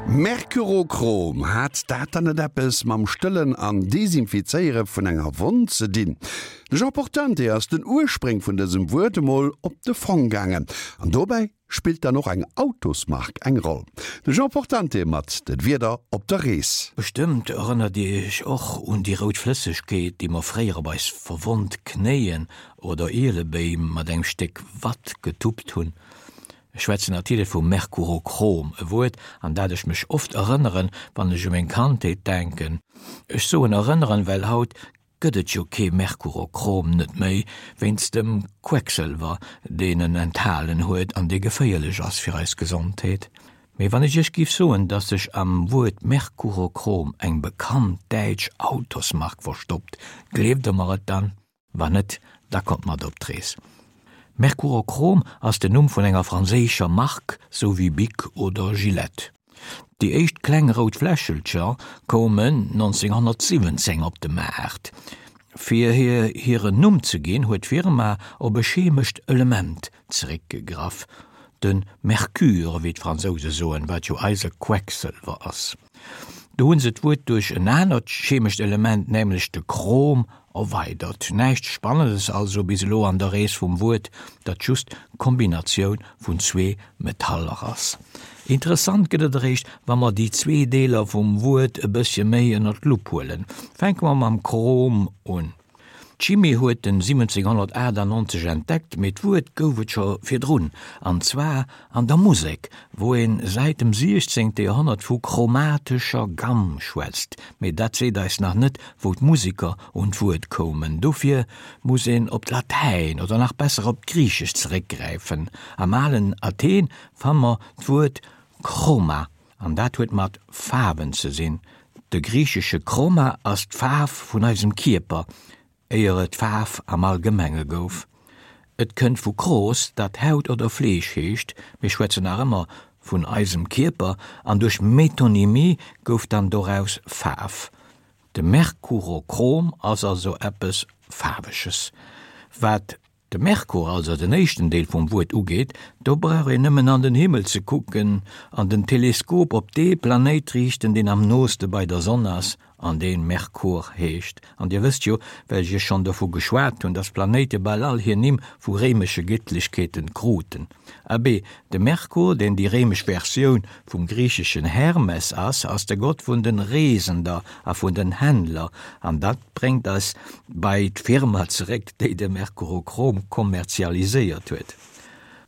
Mercurochrom, hat dat dann net eppes mam Stëllen an Desinfizéiere vun enger Wonn ze dinn? De Jean Portante ass den Urspréng vun dësem Wuert emol op de Fong gaangen. An dobäi spillt dann och eng Autosmark eng Roll. De Jean Portante mat den Wierder op der Rees. Bestëmmt erënnert Dir Iech och un déi rout Flëssegkeet, déi mer fréier op eis verwonnt Knéien oder Ielebéim mat engem Stéck Watt getuppt hunn. Ech schwätzen natierlech vu Mercurochrom, e Wuert, an dat ech mech oft erënneren, wann ech u meng Kandheet denken. Ech soen erënneren, well haut gëtt et jo kee Mercurochrom net méi, wéinst dem Quecksëlwer, deen en enthalen huet an dee geféierlech ass fir eis Gesondheet. Mee wann ech iech giff soen, dass sech am Wuert Mercurochrom eng bekannt däitsch Autosmark verstoppt, gleeft der mer et dann? Wann net, da kommt mat op d'Rees. Mercurochrom ass den Numm vun enger franséischer Mark, sou wéi Bic oder Gillette. Déi éischt kleng rout Fläschelcher koumen 1917 op de Maart. Fir hir hiren Numm ze ginn, huet d'Firma op e chemescht Element zeréckgegraff, de Mercure, wéi d'Fransouse soen, wat jo eise Quecksëlwer ass. Do hunn se d'Wuert duerch en anert chemescht Element, nämlech de Chrom, erweidert. Näischt Spannendes also bis elo an der Rees vum Wuert, dat just d'Kombinatioun vun zwee Metaller ass. Interessant gëtt et eréischt, wa mer déi zwee Deeler vum Wuert e bëssche méi ënner d'Lupp huelen. Fänke mer mam Chrom un. D'Chimie huet en 1798 entdeckt, mee d'Wuert gouf et scho virdrun, an zwar an der Musek, wou een säit dem 16. Joerhonnert vu chromatescher Gamm schwätzt. Mee dat seet eis nach net, wou d'Museker un d'Wuert koumen. Dofir muss een op d'Latäin oder nach besser op d'Griichescht zeréckgräifen. Am alen Athen fanne mer d'Wuert chroma. An dat huet mat Faarwen ze sinn. De griichesche Chroma ass d'Faarf vun eisem Kierper, éier et Faarf am Allgemenge gouf. Et kënnt vu chros, dat Haut oder Fleesch heescht, mir schwätzen nach ëmmer vun eisem Kierper, an duerch Metonymie gouf dann doraus Faarf. De Merkurochrom ass also eppes Faarweges, wat De Merkur, also den éischten Deel vum Wuert, ugeet, do brauch een nëmmen an den Himmel ze kucken an den Teleskop op dee Planéit riichten, deen am nooste bei der Sonn ass an dee Merkur heescht. An Dir wësst jo, well ech Iech schonn dovu geschwat hunn, dass d'Planéite bal all hir Nimm vu réimesche Gëttlechkeeten kruten. Abee, de Merkur, deen déi réimesch Versioun vum griicheschen Hermes ass, ass de Gott vun den Reesender a vun den Händler, an dat bréngt eis bei d'Firma zeréck, déi de Mercurochrom kommerzialiséiert huet.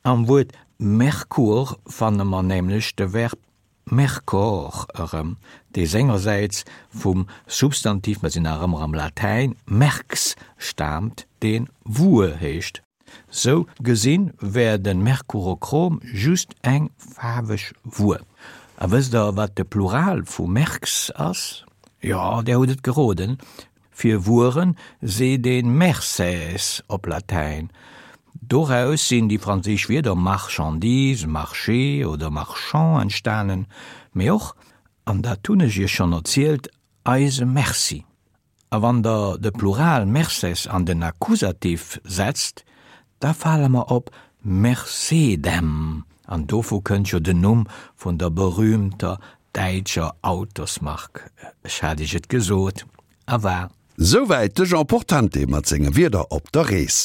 Am Wuert Merkur fanne mer nämlech de Verb mercor erëm, dee sengersäits vum Substantiv, mer sinn nach ëmmer am Latäin, merx staamt, dee Wuer heescht. Sou gesinn wär den Mercurochrom just eng faarweg Wuer. A wësst der wat de Plural vu Merx ass? Jo, där hutt et geroden, fir Wueren seet een merces op Latäin. Doraus sinn déi franséisch Wierder marchandise, marché oder marchand entstanen, mee och, an dat hunn ech iech schonn erzielt, eise Merci. A wann Der de Plural merces an den Akkusativ setzt, da fale mer op Mercedem, an dovu kënnt jo den Numm vun der berühmter däitscher Autosmark. Ech hat Iech et gesot, a war. Souwäit de Jean Portante mat senge Wierder op der Rees.